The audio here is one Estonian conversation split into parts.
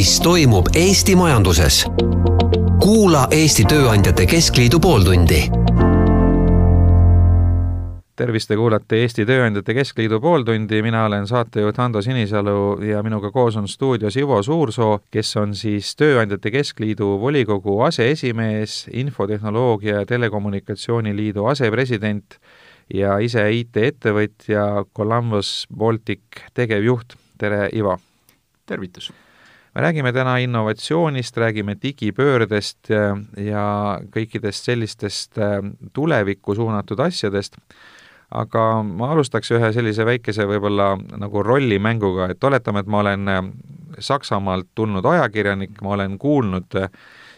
mis toimub Eesti majanduses. Kuula Eesti Tööandjate Keskliidu pooltundi. Tervist, te kuulate Eesti Tööandjate Keskliidu pooltundi. Mina olen saatejuht Hando Sinisalu ja minuga koos on stuudios Ivo Suursoo, kes on siis Tööandjate Keskliidu volikogu aseesimees, Infotehnoloogia ja Telekommunikatsiooni liidu asepresident ja ise IT-ettevõtja Columbus Baltic tegevjuht. Tere, Ivo! Tervitus! Me räägime täna innovatsioonist, räägime digipöördest ja kõikidest sellistest tulevikku suunatud asjadest, aga ma alustaks ühe sellise väikese võib-olla nagu rollimänguga, et oletame, et ma olen Saksamaalt tulnud ajakirjanik, ma olen kuulnud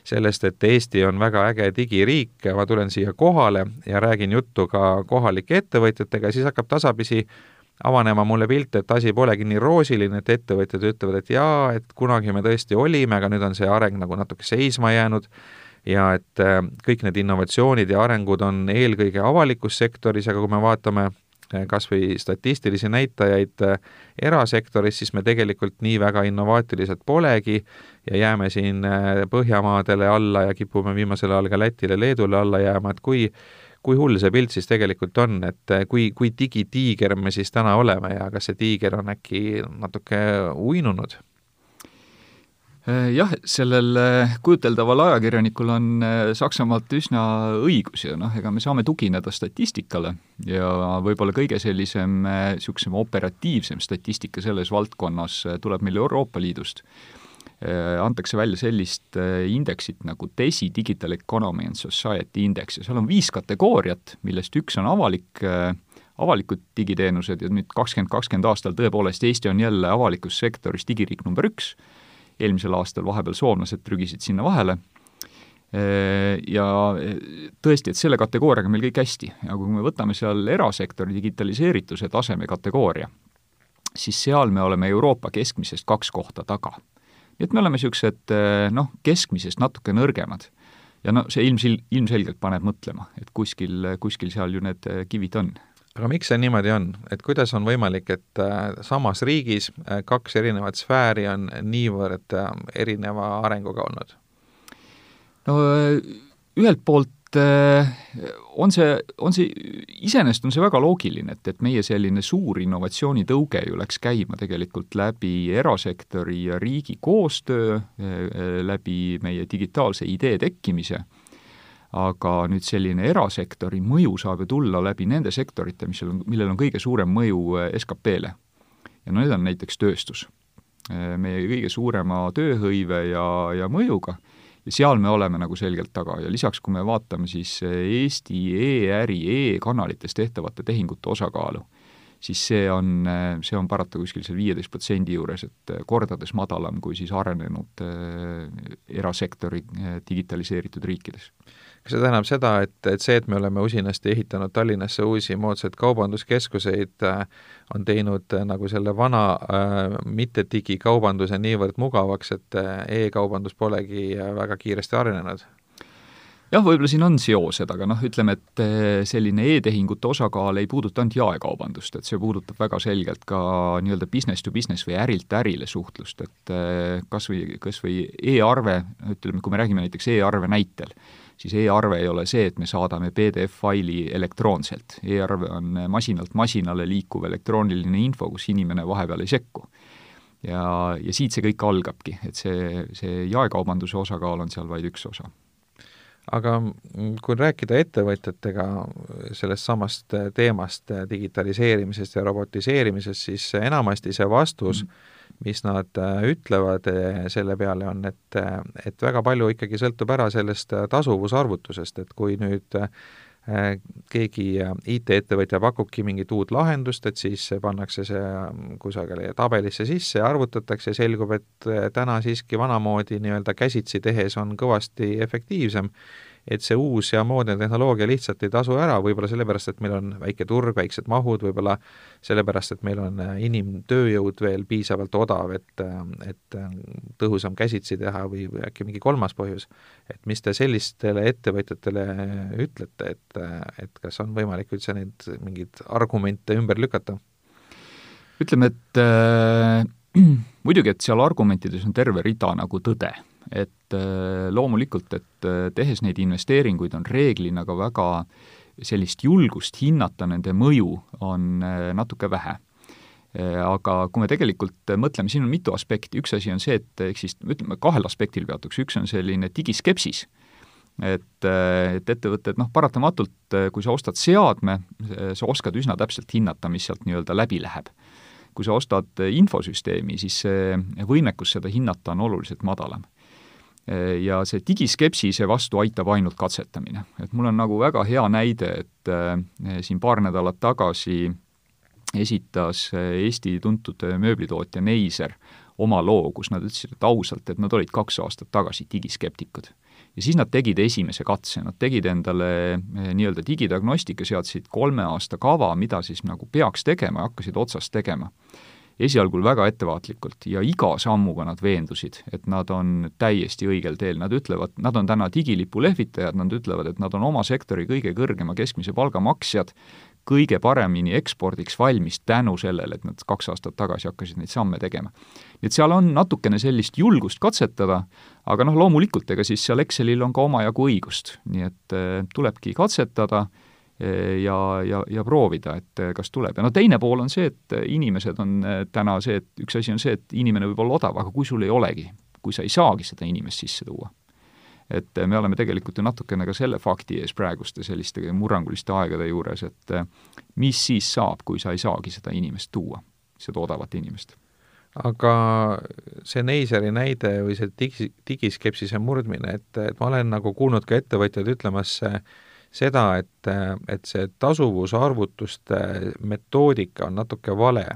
sellest, et Eesti on väga äge digiriik, ma tulen siia kohale ja räägin juttu ka kohalike ettevõtjatega, siis hakkab tasapisi avanema mulle pilt, et asi polegi nii roosiline, et ettevõtjad ütlevad, et jaa, et kunagi me tõesti olime, aga nüüd on see areng nagu natuke seisma jäänud ja et kõik need innovatsioonid ja arengud on eelkõige avalikus sektoris, aga kui me vaatame kas või statistilisi näitajaid erasektoris, siis me tegelikult nii väga innovaatilised polegi ja jääme siin Põhjamaadele alla ja kipume viimasel ajal ka Lätile, Leedule alla jääma, et kui hull see pilt siis tegelikult on, et kui digitiiger me siis täna oleme ja kas see tiiger on äkki natuke uinunud? Jah, sellel kujuteldaval ajakirjanikul on Saksamaalt üsna õigus ja ega me saame tugineda statistikale ja võib-olla kõige sellisem operatiivsem statistika selles valdkonnas tuleb meil Euroopa Liidust. Antakse välja sellist indeksit nagu DESI Digital Economy and Society Index ja seal on 5 kategooriat, millest üks on avalikud digiteenused ja nüüd 2020 aastal tõepoolest Eesti on jälle avalikus sektoris digiriik number 1. Eelmisel aastal vahepeal soomlased trügisid sinna vahele ja tõesti, et selle kategooriaga meil kõik hästi. Ja kui me võtame seal erasektori digitaliseerituse taseme kategooria, siis seal me oleme Euroopa keskmisest 2 kohta taga. Nii et me oleme sellised keskmisest natuke nõrgemad. Ja see ilmselgelt paneb mõtlema, et kuskil seal ju need kivid on. Aga miks see niimoodi on? Et kuidas on võimalik, et samas riigis 2 erinevat sfääri on niivõrd erineva arenguga olnud? No ühelt poolt on see iseenesest on see väga loogiline, et meie selline suur innovatsioonitõuge ju läks käima tegelikult läbi erasektori ja riigi koostöö, läbi meie digitaalse idee tekkimise, aga nüüd selline erasektori mõju saab ju tulla läbi nende sektorite, millel on kõige suurem mõju SKP-le. Ja need on näiteks tööstus. Meie kõige suurema tööhõive ja mõjuga. Ja seal me oleme nagu selgelt taga ja lisaks, kui me vaatame siis Eesti e-äri, e-kanalites tehtavate tehingute osakaalu, siis see on parata kuskil seal 15% juures, et kordades madalam kui siis arenenud erasektori digitaliseeritud riikides. Kas see tähendab seda, et see, et me oleme usinasti ehitanud Tallinnasse uusi moodsad kaubanduskeskuseid, on teinud nagu selle vana mitte digikaubanduse niivõrd mugavaks, et e-kaubandus polegi väga kiiresti arenenud? Jah, võib-olla siin on seosed, aga ütleme, et selline e-tehingute osakaal ei puuduta ainult jaekaubandust, et see puudutab väga selgelt ka nii-öelda business to business või ärilt ärile suhtlust, et kas või e-arve, ütleme, kui me räägime näiteks e-arve näitel, siis e-arve ei ole see, et me saadame PDF-faili elektroonselt. E-arve on masinalt masinale liikuv elektrooniline info, kus inimene vahepeal ei sekku. Ja siit see kõik algabki, et see jaekaubanduse osakaal on seal vaid üks osa. Aga kui rääkida ettevõtjatega sellest samast teemast digitaliseerimisest ja robotiseerimisest, siis enamasti see vastus, mis nad ütlevad selle peale on, et väga palju ikkagi sõltub ära sellest tasuvusarvutusest, et kui nüüd keegi IT-ettevõtja pakubki mingit uut lahendust, et siis pannakse see kusagile tabelisse sisse ja arvutatakse ja selgub, et täna siiski vanamoodi nii-öelda käsitsi tehes on kõvasti efektiivsem, et see uus ja moodne tehnoloogia lihtsalt ei tasu ära, võib-olla sellepärast, et meil on väike turg, väiksed mahud, võib-olla sellepärast, et meil on inimtööjõud veel piisavalt odav, et tõhusam käsitsi teha või äkki mingi kolmas põhjus. Et mis te sellistele ettevõtjatele ütlete, et kas on võimalik üldse neid mingeid argumente ümber lükata? Ütleme, et muidugi, et seal argumentides on terve rida nagu tõde, et loomulikult, et tehes neid investeeringuid on reeglina ka väga sellist julgust hinnata nende mõju on natuke vähe. Aga kui me tegelikult mõtleme, siin on mitu aspekti, üks asi on see, et ütleme, kahel aspektil peatuks, üks on selline digiskepsis, et ettevõtted, paratamatult, kui sa ostad seadme, sa oskad üsna täpselt hinnata, mis sealt nii-öelda läbi läheb. Kui sa ostad infosüsteemi, siis see võimekus seda hinnata on oluliselt madalam. Ja see digiskepsise vastu aitab ainult katsetamine. Et mul on nagu väga hea näide, et siin paar nädalat tagasi esitas Eesti tuntud mööblitootja Neiser oma loo, kus nad ütlesid, et ausalt, et nad olid 2 aastat tagasi digiskeptikud. Ja siis nad tegid esimese katse, nad tegid endale nii-öelda digidiagnostika, seadsid 3 aasta kava, mida siis nagu peaks tegema ja hakkasid otsast tegema. Esialgul väga ettevaatlikult ja iga sammuga nad veendusid, et nad on täiesti õigel teel. Nad ütlevad, nad on täna digilipu lehvitajad, nad ütlevad, et nad on oma sektori kõige kõrgema keskmise palgamaksjad, kõige paremini ekspordiks valmis tänu sellele, et nad 2 aastat tagasi hakkasid neid samme tegema. Nii et seal on natukene sellist julgust katsetada, aga loomulikult, ega siis seal Excelil on ka omajagu õigust, nii et tulebki katsetada ja proovida, et kas tuleb. Ja teine pool on see, et inimesed on täna see, et üks asi on see, et inimene võib olla odav, aga kui sul ei olegi, kui sa ei saagi seda inimest sisse tuua. Et me oleme tegelikult ju natukene ka selle fakti ees praeguste selliste murranguliste aegade juures, et mis siis saab, kui sa ei saagi seda inimest tuua, seda odavat inimest. Aga see Neiseri näide või see digiskepsise murdmine, et ma olen nagu kuulnud ka ettevõtjad ütlemas seda, et see tasuvusarvutuste metoodika on natuke vale,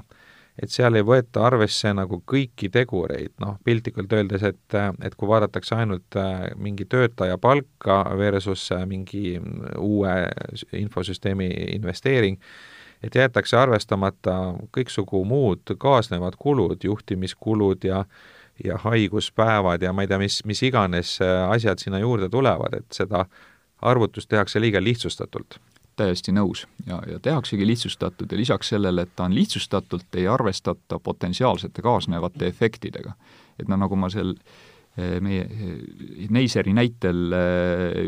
et seal ei võeta arvesse nagu kõiki tegureid, piltlikult öeldes, et kui vaadatakse ainult mingi töötaja palka versus mingi uue infosüsteemi investeering, et jäetakse arvestamata kõiksugu muud kaasnevad kulud, juhtimiskulud ja haiguspäevad ja ma ei tea, mis iganes asjad sinna juurde tulevad, et seda arvutust tehakse liiga lihtsustatult. Täiesti nõus ja tehaksegi lihtsustatud ja lisaks sellele, et ta on lihtsustatult, ei arvestata potentsiaalsete kaasnevate efektidega. Et nagu ma meie Neiseri näitel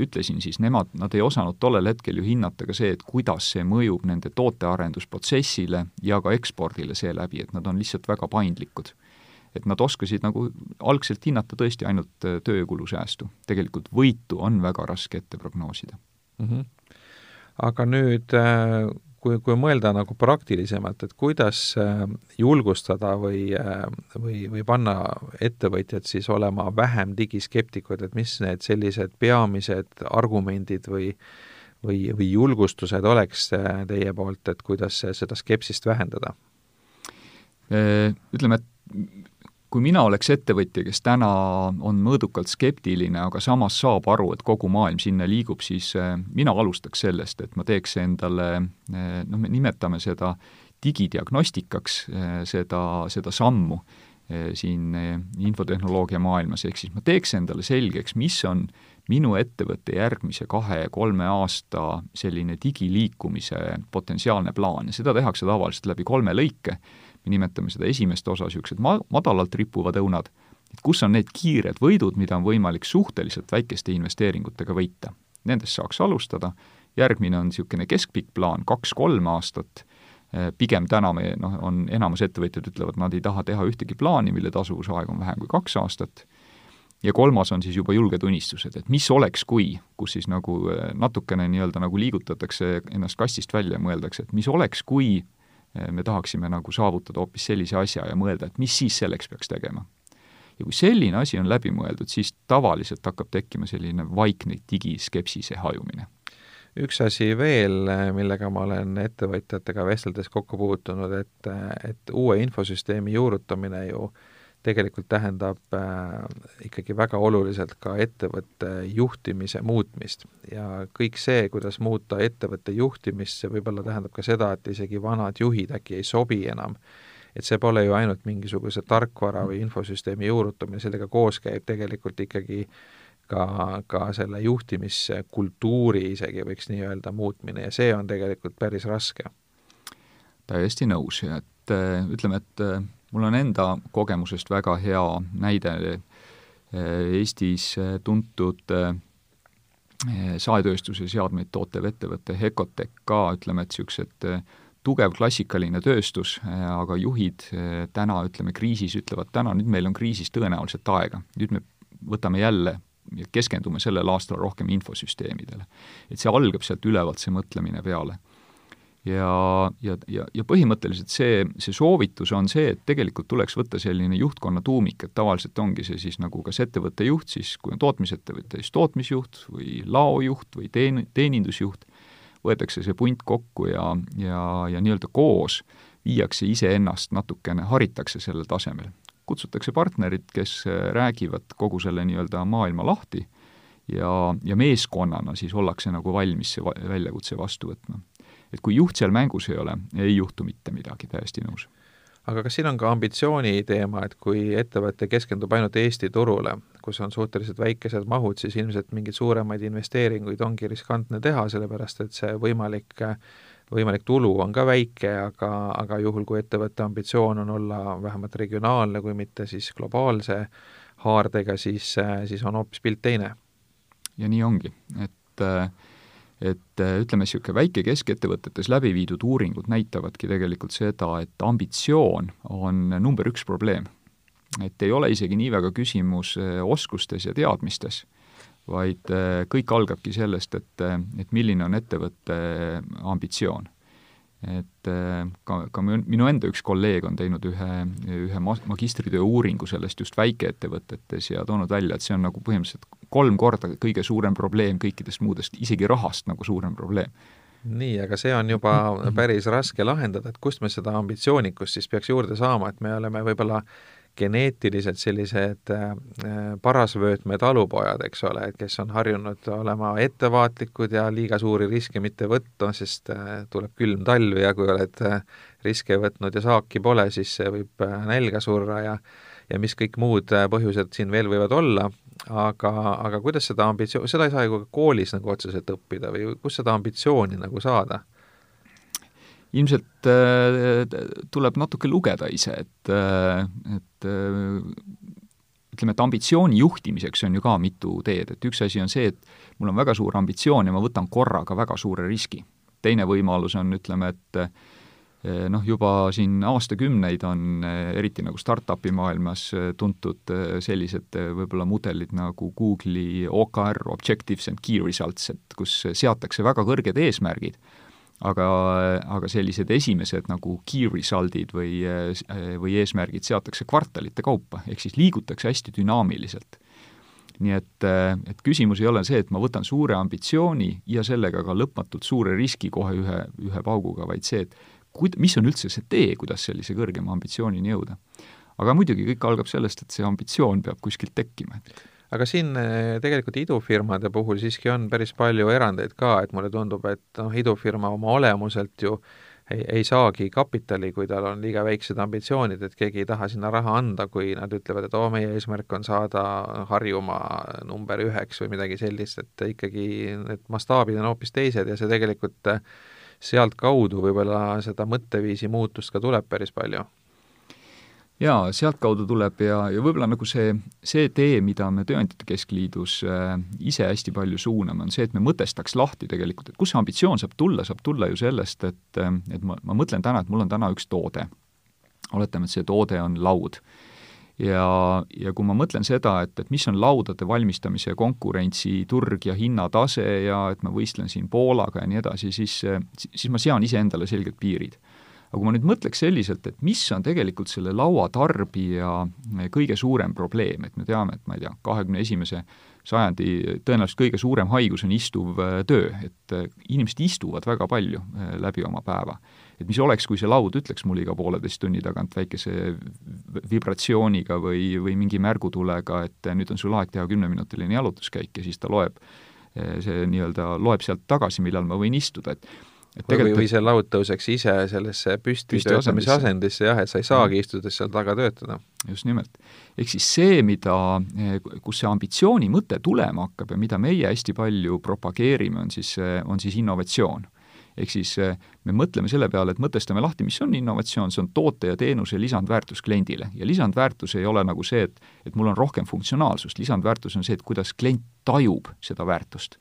ütlesin, siis nad ei osanud tollel hetkel ju hinnata ka see, et kuidas see mõjub nende tootearendusprotsessile ja ka ekspordile seeläbi, et nad on lihtsalt väga paindlikud. Et nad oskasid nagu algselt hinnata tõesti ainult töökulusäästu. Tegelikult võitu on väga raske ette prognoosida. Aga nüüd, kui mõelda nagu praktilisemalt, et kuidas julgustada või panna ettevõtjad siis olema vähem digiskeptikud, et mis need sellised peamised argumendid või julgustused oleks teie poolt, et kuidas seda skepsist vähendada? Ütleme, et kui mina oleks ettevõtja, kes täna on mõõdukalt skeptiline, aga samas saab aru, et kogu maailm sinna liigub, siis mina alustaks sellest, et ma teeks endale, me nimetame seda digidiagnostikaks, seda sammu siin infotehnoloogia maailmas, ehk siis ma teeks endale selgeks, mis on minu ettevõtte järgmise 2-3 aasta selline digiliikumise potentsiaalne plaan ja seda tehakse tavaliselt läbi 3 lõike. Me nimetame seda esimest osa niisugused madalalt rippuvad õunad, et kus on need kiired võidud, mida on võimalik suhteliselt väikeste investeeringutega võita. Nendest saaks alustada, järgmine on niisugune keskpikk plaan, 2-3 aastat, pigem täna on enamus ettevõtjad ütlevad, nad ei taha teha ühtegi plaani, mille tasuvusaeg on vähem kui 2 aastat, ja 3. on siis juba julged unistused, et mis oleks kui, kus siis nagu natukene nii-öelda nagu liigutatakse ennast kastist välja ja mõeldakse, et mis oleks kui me tahaksime nagu saavutada hoopis sellise asja ja mõelda, et mis siis selleks peaks tegema. Ja kui selline asi on läbi mõeldud, siis tavaliselt hakkab tekkima selline vaikne digiskepsise hajumine. Üks asi veel, millega ma olen ettevõtjatega vesteldes kokku puutunud, et uue infosüsteemi juurutamine ju tegelikult tähendab ikkagi väga oluliselt ka ettevõtte juhtimise muutmist ja kõik see, kuidas muuta ettevõtte juhtimist, see võib-olla tähendab ka seda, et isegi vanad juhid äkki ei sobi enam, et see pole ju ainult mingisuguse tarkvara või infosüsteemi juurutamine, sellega koos käib tegelikult ikkagi ka selle juhtimiskultuuri isegi võiks nii öelda muutmine ja see on tegelikult päris raske. Täiesti nõus ja et ütleme, et mul on enda kogemusest väga hea näide Eestis tuntud saetööstuse seadmeid tootev ettevõte Hecotec ka, ütleme, et niisugused tugev klassikaline tööstus, aga juhid täna, ütleme, kriisis ütlevad täna, nüüd meil on kriisis tõenäoliselt aega. Nüüd me võtame jälle ja keskendume sellel aastal rohkem infosüsteemidele. Et see algab sealt ülevalt see mõtlemine peale. Ja põhimõtteliselt see soovitus on see, et tegelikult tuleks võtta selline juhtkonna tuumik, et tavaliselt ongi see siis nagu kas ettevõtte juht, siis kui on tootmisettevõte, siis tootmisjuht või laojuht või teenindusjuht, võetakse see punt kokku ja nii-öelda koos viiakse iseennast natukene, haritakse sellel tasemel. Kutsutakse partnerid, kes räägivad kogu selle nii-öelda maailma lahti ja meeskonnana siis ollakse nagu valmis see väljakutse vastu võtma. Et kui juht seal mängus ei ole, ei juhtu mitte midagi, täiesti nõus. Aga kas siin on ka ambitsiooni teema, et kui ettevõte keskendub ainult Eesti turule, kus on suhteliselt väikesed mahud, siis ilmselt mingeid suuremaid investeeringuid ongi riskantne teha, sellepärast et see võimalik tulu on ka väike, aga juhul, kui ettevõtte ambitsioon on olla vähemalt regionaalne, kui mitte siis globaalse haardega, siis on hoopis pilt teine. Ja nii ongi, et ütleme, niisugune väike keskettevõtetes läbi viidud uuringud näitavadki tegelikult seda, et ambitsioon on number 1 probleem. Et ei ole isegi nii väga küsimus oskustes ja teadmistes, vaid kõik algabki sellest, et milline on ettevõtte ambitsioon. Et ka minu enda üks kolleeg on teinud ühe magistritöö uuringu sellest just väikeettevõtetes ja toonud välja, et see on nagu põhimõtteliselt 3 korda kõige suurem probleem kõikidest muudest, isegi rahast nagu suurem probleem. Nii, aga see on juba päris raske lahendada, et kust me seda ambitsioonikust siis peaks juurde saama, et me oleme võib-olla geneetiliselt sellised parasvöötme talupojad, eks ole, et kes on harjunud olema ettevaatlikud ja liiga suuri riske mitte võtta, sest tuleb külm talv ja kui oled riske võtnud ja saaki pole, siis võib nälga surra ja mis kõik muud põhjused siin veel võivad olla, aga kuidas seda seda ei saa ju koolis nagu otseselt õppida või kus seda ambitsiooni nagu saada? Ilmselt tuleb natuke lugeda ise, et ütleme, et ambitsiooni juhtimiseks on ju ka mitu teed, et üks asi on see, et mul on väga suur ambitsioon ja ma võtan korraga väga suure riski. Teine võimalus on, ütleme, et juba siin aastakümneid on eriti nagu startupi maailmas tuntud sellised võib-olla mudelid nagu Google'i OKR, Objectives and Key Results, et kus seatakse väga kõrged eesmärgid, aga sellised esimesed nagu key result'id või eesmärgid seatakse kvartalite kaupa, ehk siis liigutakse hästi dünaamiliselt. Nii et küsimus ei ole see, et ma võtan suure ambitsiooni ja sellega ka lõpmatult suure riski kohe ühe pauguga, vaid see, et mis on üldse see tee, kuidas sellise kõrgema ambitsioonini jõuda. Aga muidugi kõik algab sellest, et see ambitsioon peab kuskilt tekkima. Aga siin tegelikult idufirmade puhul siiski on päris palju erandeid ka, et mulle tundub, et idufirma oma olemuselt ju ei saagi kapitali, kui tal on liiga väiksed ambitsioonid, et keegi ei taha sinna raha anda, kui nad ütlevad, et meie eesmärk on saada Harjumaa number 1 või midagi sellist, et ikkagi need mastaabid on hoopis teised ja see tegelikult sealt kaudu võib-olla seda mõtteviisi muutust ka tuleb päris palju. Jaa, sealt kaudu tuleb ja võib-olla nagu see tee, mida me Tööandjate Keskliidus ise hästi palju suuname, on see, et me mõtestaks lahti tegelikult, et kus see ambitsioon saab tulla ju sellest, et ma mõtlen täna, et mul on täna üks toode. Oletame, et see toode on laud. Ja kui ma mõtlen seda, et mis on laudade valmistamise konkurentsi turg ja hinnatase ja et ma võistlen siin Poolaga ja nii edasi, siis ma sean ise endale selgelt piirid. Aga kui ma nüüd mõtleks selliselt, et mis on tegelikult selle lauatarbija kõige suurem probleem, et me teame, et ma ei tea, 21. sajandi tõenäoliselt kõige suurem haigus on istuv töö, et inimesed istuvad väga palju läbi oma päeva. Et mis oleks, kui see laud ütleks mul iga 1,5 tunni tagant väikese vibratsiooniga või mingi märgutulega, et nüüd on sul aeg teha 10-minutiline jalutuskäik ja siis ta loeb sealt tagasi, millal ma võin istuda, või see laud tõuseks ise sellesse püsti töötamise asendisse, jah, et sa ei saagi istudes seal taga töötada. Just nimelt. Ehk siis see, kus see ambitsiooni mõte tulema hakkab ja mida meie hästi palju propageerime, on siis innovatsioon. Ehk siis me mõtleme selle peale, et mõtestame lahti, mis on innovatsioon, see on toote ja teenuse lisandväärtus kliendile. Ja lisandväärtus ei ole nagu see, et mul on rohkem funktsionaalsust, lisandväärtus on see, et kuidas klient tajub seda väärtust.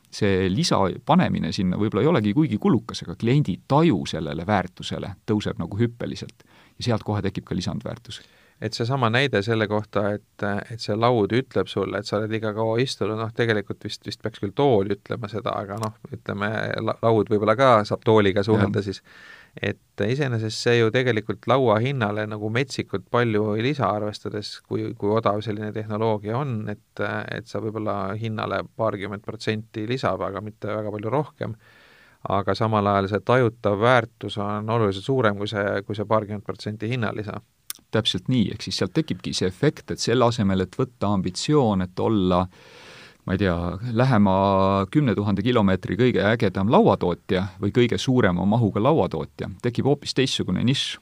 See lisa panemine sinna võib-olla ei olegi kuigi kulukas, aga kliendi taju sellele väärtusele tõuseb nagu hüppeliselt ja sealt kohe tekib ka lisandväärtus. Et see sama näide selle kohta, et see laud ütleb sulle, et sa oled liiga kaua istunud, tegelikult vist peaks küll tool ütlema seda, aga ütleme, laud võib-olla ka saab tooliga suhelda siis. Et iseenesest see ju tegelikult laua hinnale nagu metsikult palju ei lisa, arvestades, kui odav selline tehnoloogia on, et sa võib-olla hinnale 20% lisab, aga mitte väga palju rohkem. Aga samal ajal see tajutav väärtus on oluliselt suurem kui see 20% hinnalisa. Täpselt nii, ehk siis sealt tekibki see efekt, et selle asemel, et võtta ambitsioon, et olla, ma ei tea, lähema 10 000 kilomeetri kõige ägedam lauatootja või kõige suurema mahuga lauatootja, tekib hoopis teistsugune nišš,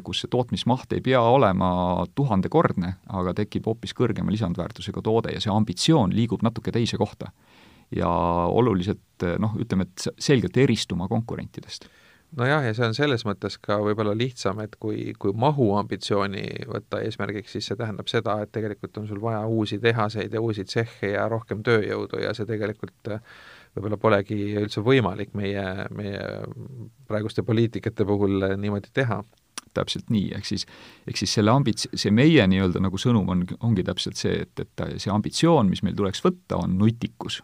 kus see tootmismaht ei pea olema 1000-kordne, aga tekib hoopis kõrgema lisandväärtusega toode ja see ambitsioon liigub natuke teise kohta. Ja oluliselt, ütleme, et selgelt eristuma konkurentidest. Nojah, ja see on selles mõttes ka võib-olla lihtsam, et kui mahu ambitsiooni võtta eesmärgiks, siis see tähendab seda, et tegelikult on sul vaja uusi tehaseid ja uusi tsehhe ja rohkem tööjõudu ja see tegelikult võib-olla polegi üldse võimalik meie praeguste poliitikate puhul niimoodi teha. Täpselt nii, ehk siis see meie nii-öelda nagu sõnum ongi täpselt see, et see ambitsioon, mis meil tuleks võtta, on nutikus.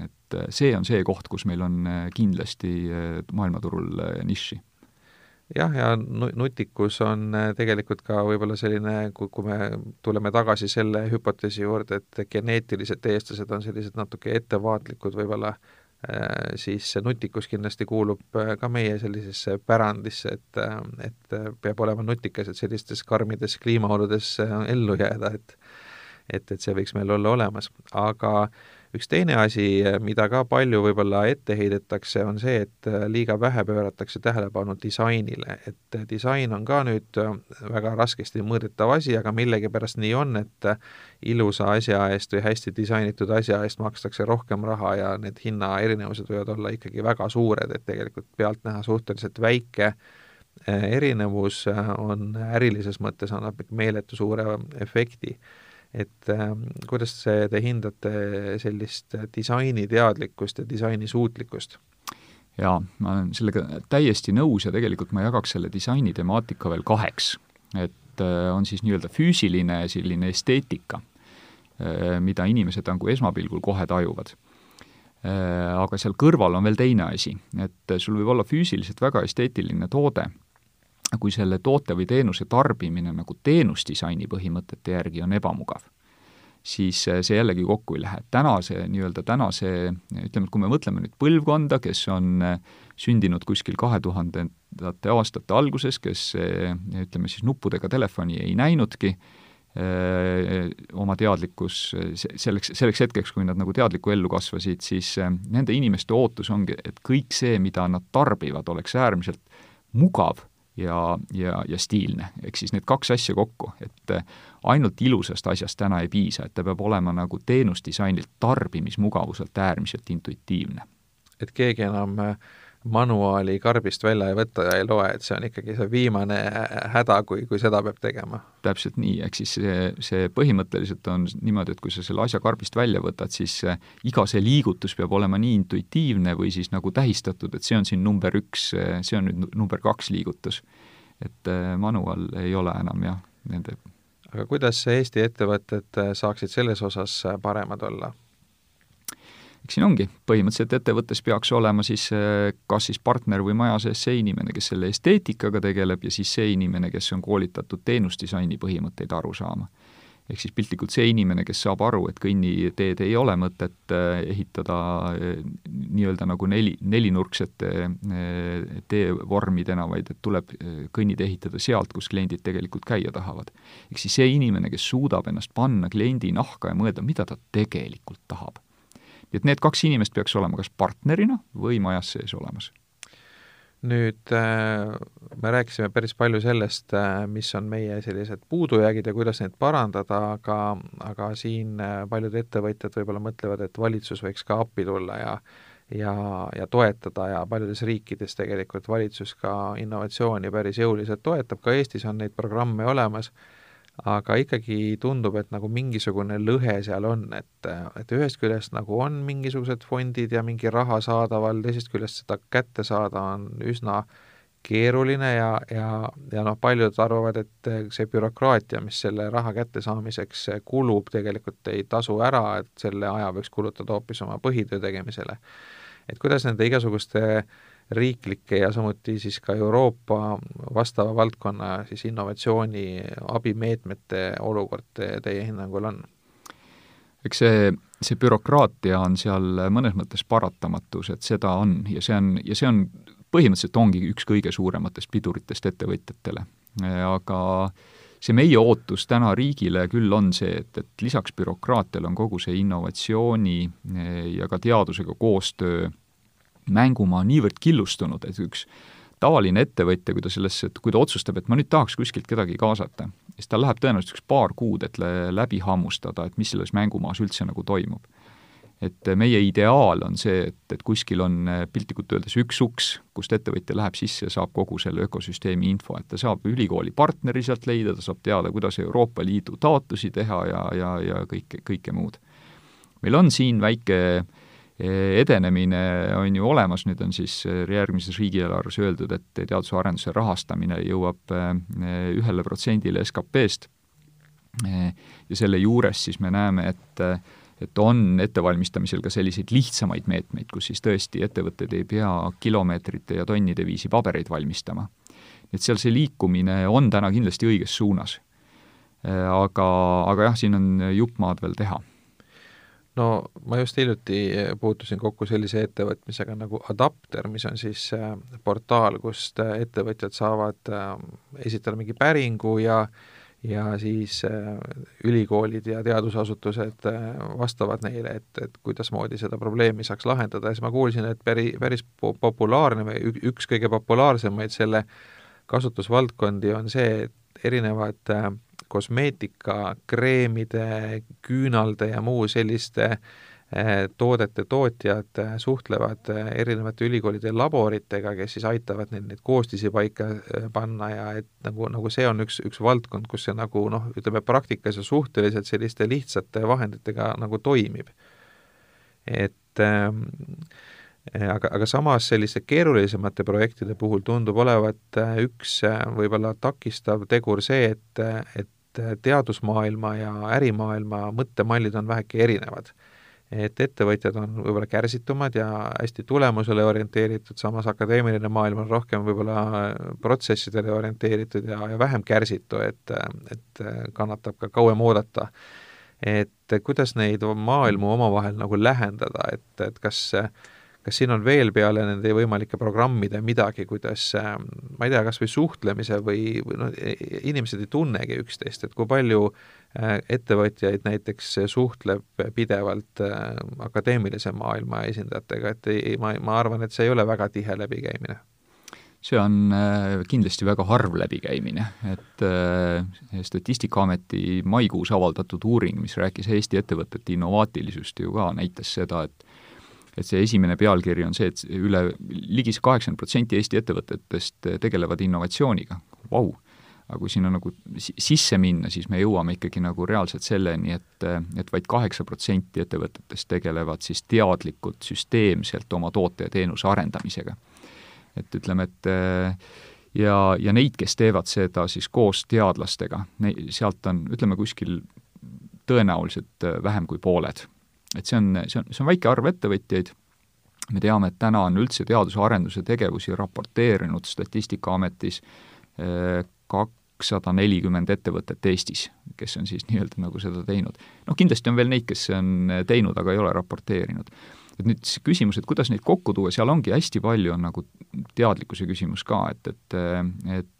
Et see on see koht, kus meil on kindlasti maailmaturul niši. Jah, ja nutikus on tegelikult ka võib-olla selline, kui me tuleme tagasi selle hüpoteesi juurde, et geneetilised eestlased on sellised natuke ettevaatlikud võib-olla, siis see nutikus kindlasti kuulub ka meie sellisesse pärandisse, et peab olema nutikas, et sellistes karmides kliimaoludes ellu jääda, et see võiks meil olla olemas. Aga üks teine asi, mida ka palju võib-olla ette heidetakse, on see, et liiga vähe pööratakse tähelepanu disainile. Et disain on ka nüüd väga raskesti mõõdetav asi, aga millegipärast nii on, et ilusa asja eest või hästi disainitud asja eest makstakse rohkem raha ja need hinna erinevused võivad olla ikkagi väga suured, et tegelikult pealt näha suhteliselt väike erinevus on ärilises mõttes annab meeletu suure efekti. Et kuidas te hindate sellist disainiteadlikkust ja disainisuutlikkust? Jaa, ma olen sellega täiesti nõus ja tegelikult ma jagaks selle disaini temaatika veel 2. Et on siis nii-öelda füüsiline selline esteetika, mida inimesed nagu esmapilgul kohe tajuvad. Aga seal kõrval on veel teine asi, et sul võib olla füüsiliselt väga esteetiline toode, kui selle toote või teenuse tarbimine nagu teenusdisaini põhimõtete järgi on ebamugav, siis see jällegi kokku ei lähe. Tänase, ütleme, kui me mõtleme nüüd põlvkonda, kes on sündinud kuskil 2000. aastate alguses, kes, ütleme siis nuppudega telefoni ei näinudki, oma teadlikkus selleks hetkeks, kui nad nagu teadliku ellu kasvasid, siis nende inimeste ootus ongi, et kõik see, mida nad tarbivad, oleks äärmiselt mugav ja stiilne. Ehk siis need 2 asja kokku, et ainult ilusast asjast täna ei piisa, et ta peab olema nagu teenusdisainilt tarbimismugavuselt äärmiselt intuitiivne. Et keegi enam manuaali karbist välja ei võta ja ei loe, et see on ikkagi see viimane häda, kui seda peab tegema. Täpselt nii, ehk siis see põhimõtteliselt on niimoodi, et kui sa selle asja karbist välja võtad, siis iga see liigutus peab olema nii intuitiivne või siis nagu tähistatud, et see on siin number 1, see on nüüd number 2 liigutus. Et manual ei ole enam jah nende. Aga kuidas Eesti ettevõtted saaksid selles osas paremad olla? Eks siin ongi, põhimõtteliselt ettevõttes peaks olema siis kas siis partner või maja sees see inimene, kes selle esteetikaga tegeleb ja siis see inimene, kes on koolitatud teenusdisaini põhimõtteid aru saama. Ehk siis piltlikult see inimene, kes saab aru, et kõnniteed ei ole mõtet ehitada nii-öelda nagu nelinurksete teevormidena, vaid et tuleb kõnnid ehitada sealt, kus kliendid tegelikult käia tahavad. Ehk siis see inimene, kes suudab ennast panna kliendi nahka ja mõelda, mida ta tegelikult tahab. Et need 2 inimest peaks olema kas partnerina või majas sees olemas. Nüüd me rääkisime päris palju sellest, mis on meie sellised puudujäägid ja kuidas neid parandada, aga siin paljud ettevõtjad võib-olla mõtlevad, et valitsus võiks ka appi tulla ja toetada ja paljudes riikides tegelikult valitsus ka innovatsiooni päris jõuliselt toetab, ka Eestis on neid programme olemas, aga ikkagi tundub, et nagu mingisugune lõhe seal on, et ühest küljest nagu on mingisugused fondid ja mingi raha saadaval, teisest küljest seda kätte saada on üsna keeruline ja paljud arvavad, et see bürokraatia, mis selle raha kättesaamiseks kulub, tegelikult ei tasu ära, et selle aja võiks kulutada hoopis oma põhitöö tegemisele. Et kuidas nende igasuguste riiklike ja samuti siis ka Euroopa vastava valdkonna siis innovatsiooni abimeetmete olukord teie hinnangul on? Eks see bürokraatia on seal mõnes mõttes paratamatus, et seda on ja see on põhimõtteliselt ongi üks kõige suurematest piduritest ettevõtjatele. Aga see meie ootus täna riigile küll on see, et lisaks bürokraatiale on kogu see innovatsiooni ja ka teadusega koostöö mängumaa niivõrd killustunud, et üks tavaline ettevõtja, kui ta otsustab, et ma nüüd tahaks kuskilt kedagi kaasata, siis tal läheb tõenäoliselt üks paar kuud, et läbi hammustada, et mis selles mängumaas üldse nagu toimub. Et meie ideaal on see, et kuskil on piltlikult öeldes üks uks, kust ettevõtja läheb sisse ja saab kogu selle ökosüsteemi info, et ta saab ülikooli partneri sealt leida, ta saab teada, kuidas Euroopa Liidu taotlusi teha ja kõike muud. Meil on siin väike edenemine on ju olemas, nüüd on siis järgmises riigieelarves öeldud, et teaduse arenduse rahastamine jõuab 1% SKP-st ja selle juures siis me näeme, et on ettevalmistamisel ka selliseid lihtsamaid meetmeid, kus siis tõesti ettevõtted ei pea kilomeetrite ja tonnide viisi pabereid valmistama. Et seal see liikumine on täna kindlasti õiges suunas. Aga jah, siin on juppmaad veel teha. No ma just hiljuti puutusin kokku sellise ettevõtmisega nagu Adapter, mis on siis portaal, kust ettevõtjad saavad esitada mingi päringu ja siis ülikoolid ja teadusasutused vastavad neile, et kuidas moodi seda probleemi saaks lahendada. Ja siis ma kuulsin, et päris populaarne või üks kõige populaarsemaid selle kasutusvaldkondi on see, et erinevad kosmeetika, kreemide, küünalde ja muu selliste toodete tootjad suhtlevad erinevate ülikoolide laboritega, kes siis aitavad neid koostisi paika panna ja et nagu see on üks valdkond, kus see nagu ütleme praktikas ja suhteliselt selliste lihtsate vahenditega nagu toimib. Aga samas selliste keerulisemate projektide puhul tundub olevat üks võib-olla takistav tegur see, et teadusmaailma ja ärimaailma mõttemallid on väheke erinevad. Et ettevõtjad on võib-olla kärsitumad ja hästi tulemusele orienteeritud, samas akadeemiline maailm on rohkem võib-olla protsessidele orienteeritud ja vähem kärsitu, et kannatab ka kauem oodata. Et kuidas neid maailmu omavahel nagu lähendada, et kas siin on veel peale nende võimalike programmide midagi, kuidas, ma ei tea, kas või suhtlemise või inimesed ei tunnegi üksteist, et kui palju ettevõtjaid näiteks suhtleb pidevalt akadeemilise maailma esindajatega, et ma arvan, et see ei ole väga tihe läbikäimine. See on kindlasti väga harv läbikäimine, et Statistikaameti maikuus avaldatud uuring, mis rääkis Eesti ettevõtete innovaatilisust ju ka, näitas seda, et see esimene pealkiri on see, et ligi 80% Eesti ettevõtetest tegelevad innovatsiooniga. Vau! Aga kui sinna nagu sisse minna, siis me jõuame ikkagi nagu reaalselt selleni, et vaid 8% ettevõtetest tegelevad siis teadlikult süsteemselt oma toote ja teenuse arendamisega. Et ütleme, et ja neid, kes teevad seda siis koos teadlastega, sealt on, ütleme, kuskil tõenäoliselt vähem kui pooled. Et see on väike arv ettevõtjaid. Me teame, et täna on üldse teaduse arenduse tegevusi raporteerinud Statistikaametis 240 ettevõtet Eestis, kes on siis nii-öelda nagu seda teinud. Kindlasti on veel neid, kes on teinud, aga ei ole raporteerinud. Et nüüd küsimus, et kuidas neid kokku tuua, seal ongi hästi palju on nagu teadlikkuse küsimus ka, et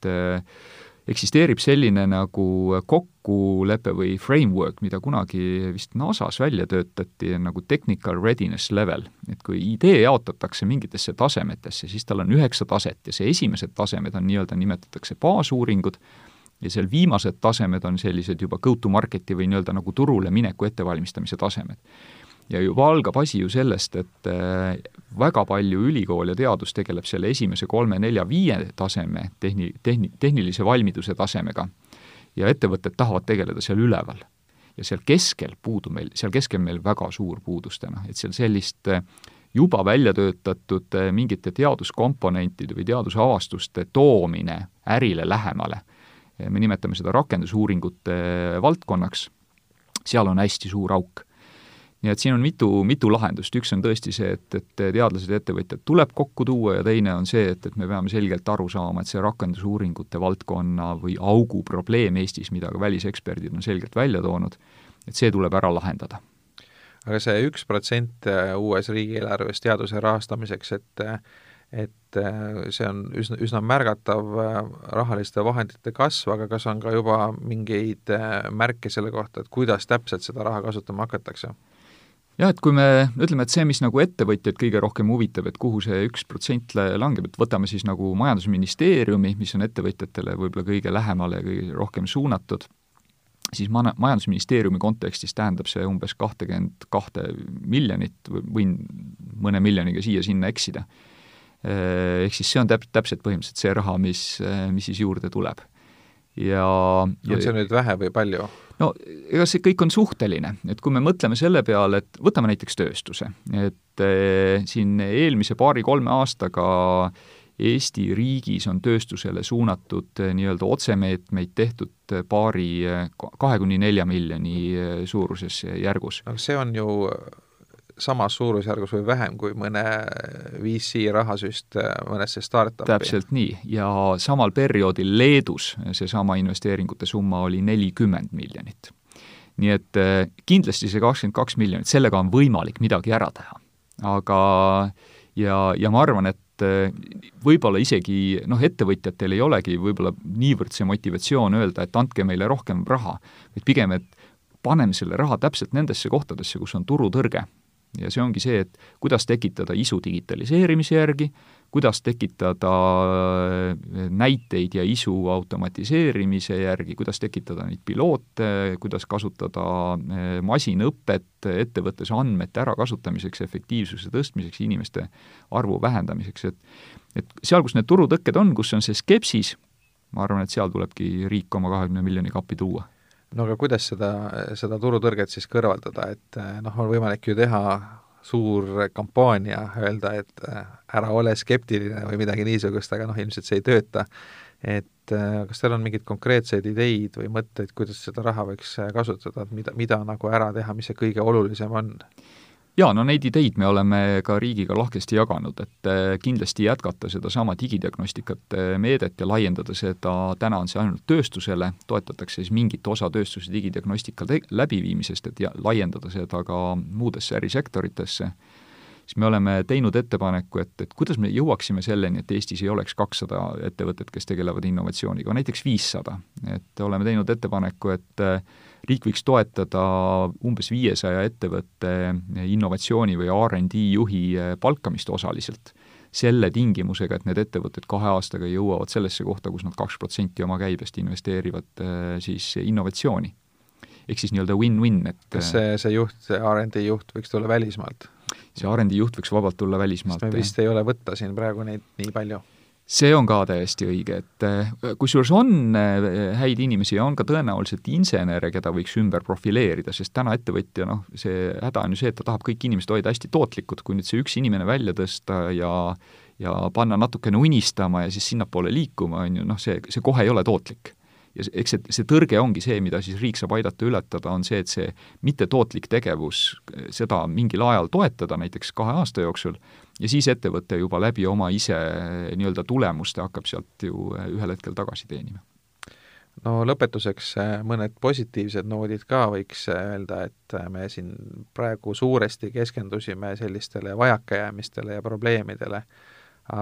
eksisteerib selline nagu kokkulepe või framework, mida kunagi vist NASAs välja töötati nagu technical readiness level, et kui idee jaotatakse mingitesse tasemetesse, siis tal on 9 taset ja see esimesed tasemed on nii-öelda nimetatakse baasuuringud ja seal viimased tasemed on sellised juba go-to-marketi või nii-öelda nagu turule mineku ettevalmistamise tasemed. Ja juba algab asi ju sellest, et väga palju ülikool ja teadus tegeleb selle esimese 3, 4, 5 taseme tehnilise valmiduse tasemega ja ettevõtted tahavad tegeleda seal üleval. Ja seal keskel meil väga suur puudus täna, et seal sellist juba välja töötatud mingite teaduskomponentide või teadusavastuste toomine ärile lähemale. Me nimetame seda rakendusuuringute valdkonnaks, seal on hästi suur auk. Nii et siin on mitu lahendust. Üks on tõesti see, et teadlased ja ettevõtjad tuleb kokku tuua ja teine on see, et me peame selgelt aru saama, et see rakendusuuringute valdkonna või augu probleem Eestis, mida ka väliseksperdid on selgelt välja toonud, et see tuleb ära lahendada. Aga see 1% uues riigieelarves teaduse rahastamiseks, et see on üsna märgatav rahaliste vahendite kasv, aga kas on ka juba mingeid märke selle kohta, et kuidas täpselt seda raha kasutama hakatakse? Jah, et kui me ütleme, et see, mis nagu ettevõtjaid kõige rohkem huvitab, et kuhu see 1% langeb, et võtame siis nagu majandusministeeriumi, mis on ettevõtjatele võib-olla kõige lähemale ja kõige rohkem suunatud, siis majandusministeeriumi kontekstis tähendab see umbes 22 miljonit, võin mõne miljoniga siia-sinna eksida. Ehk siis see on täpselt põhimõtteliselt see raha, mis siis juurde tuleb. On see nüüd vähe või palju? No ega see kõik on suhteline, et kui me mõtleme selle peale, et võtame näiteks tööstuse, et siin eelmise 2-3 aastaga Eesti riigis on tööstusele suunatud nii-öelda otsemeetmeid tehtud 2-4 miljoni suuruses järgus. Aga see on ju samas suurusjärgus või vähem kui mõne VC rahasüst mõnesse startupi. Täpselt nii, ja samal perioodil Leedus seesama investeeringute summa oli 40 miljonit. Nii et kindlasti see 22 miljonit, sellega on võimalik midagi ära teha. Aga ja ma arvan, et võib-olla isegi ettevõtjatel ei olegi võib-olla niivõrd see motivatsioon öelda, et andke meile rohkem raha, vaid pigem, et paneme selle raha täpselt nendesse kohtadesse, kus on turutõrge. Ja see ongi see, et kuidas tekitada isu digitaliseerimise järgi, kuidas tekitada näiteid ja isu automatiseerimise järgi, kuidas tekitada neid piloote, kuidas kasutada masinõpet ettevõttes andmete ärakasutamiseks, efektiivsuse tõstmiseks, inimeste arvu vähendamiseks. Et seal, kus need turutõkked on, kus on see skepsis, ma arvan, et seal tulebki riik oma 20 miljoni kappi tuua. No aga kuidas seda turutõrget siis kõrvaldada, et on võimalik ju teha suur kampaania, öelda, et ära ole skeptiline või midagi niisugust, aga ilmselt see ei tööta. Et kas teil on mingid konkreetseid ideid või mõtteid, kuidas seda raha võiks kasutada, et mida nagu ära teha, mis see kõige olulisem on? Jaa, neid ideid me oleme ka riigiga lahkesti jaganud, et kindlasti jätkata seda sama digidiagnostikat meedet ja laiendada seda, täna on see ainult tööstusele, toetatakse siis mingit osa tööstuse digidiagnostika läbiviimisest, et laiendada seda ka muudesse ärisektoritesse. Siis me oleme teinud ettepaneku, et kuidas me jõuaksime selleni, et Eestis ei oleks 200 ettevõtet, kes tegelevad innovatsiooniga, näiteks 500. Et oleme teinud ettepaneku, et riik võiks toetada umbes 500 ettevõtte innovatsiooni või R&D juhi palkamist osaliselt. Selle tingimusega, et need ettevõtted 2 aastaga jõuavad sellesse kohta, kus nad 2% oma käibest investeerivad siis innovatsiooni. Ehk siis nii-öelda win-win. Kas see juht, see R&D juht võiks tulla välismaalt? See R&D juht võiks vabalt tulla välismaalt. Sest me vist ei ole võtta siin praegu neid nii palju. See on ka täiesti õige, et kusjuures on häid inimesi ja on ka tõenäoliselt insenere, keda võiks ümber profileerida, sest täna ettevõtja, see häda on ju see, et ta tahab kõik inimesed hoida hästi tootlikud, kui nüüd see üks inimene välja tõsta ja panna natukene unistama ja siis sinnapoole liikuma, on ju, see kohe ei ole tootlik. Ja eks see tõrge ongi see, mida siis riik saab aidata ületada, on see, et see mittetootlik tegevus, seda mingil ajal toetada, näiteks 2 aasta jooksul, ja siis ettevõte juba läbi oma ise nii-öelda tulemuste hakkab sealt ju ühel hetkel tagasi teenima. No lõpetuseks mõned positiivsed noodid ka võiks öelda, et me siin praegu suuresti keskendusime sellistele vajakajäämistele ja probleemidele,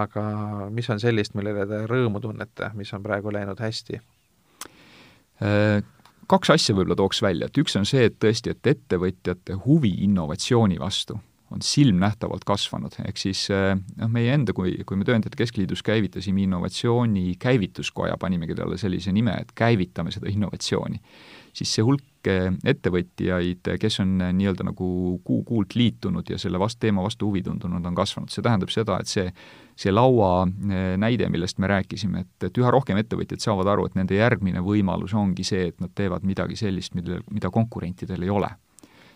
aga mis on sellist, millele te rõõmu tunnete, mis on praegu läinud hästi? 2 asja võib-olla tooks välja, et üks on see, et tõesti, et ettevõtjate huvi innovatsiooni vastu on silmnähtavalt kasvanud, ehk siis meie enda, kui me Tööandjate Keskliidus käivitasime innovatsiooni käivituskoja, panimegi talle sellise nime, et käivitame seda innovatsiooni, siis see hulk ettevõtjaid, kes on nii-öelda nagu kuult liitunud ja selle teema vastu huvi tundunud, on kasvanud. See tähendab seda, et see laua näide, millest me rääkisime, et üha rohkem ettevõtjad saavad aru, et nende järgmine võimalus ongi see, et nad teevad midagi sellist, mida konkurentidel ei ole.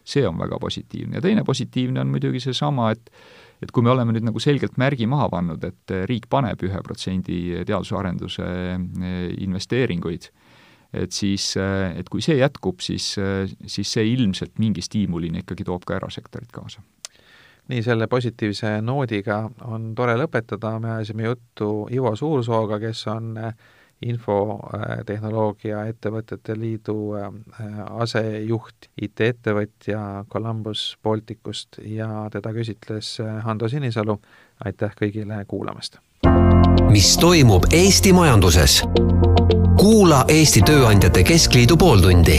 See on väga positiivne. Ja teine positiivne on muidugi seesama, et kui me oleme nüüd nagu selgelt märgi maha pannud, et riik paneb 1% teadusarenduse investeeringuid, et kui see jätkub, siis see ilmselt mingi stiimulini ikkagi toob ka erasektorit kaasa. Nii, selle positiivse noodiga on tore lõpetada. Me ajasime juttu Ivo Suursooga, kes on infotehnoloogia ettevõtete liidu asejuht, IT-ettevõtja Columbus Balticust ja teda küsitles Hando Sinisalu. Aitäh kõigile kuulamast! Mis toimub Eesti majanduses? Kuula Eesti Tööandjate Keskliidu pooltundi.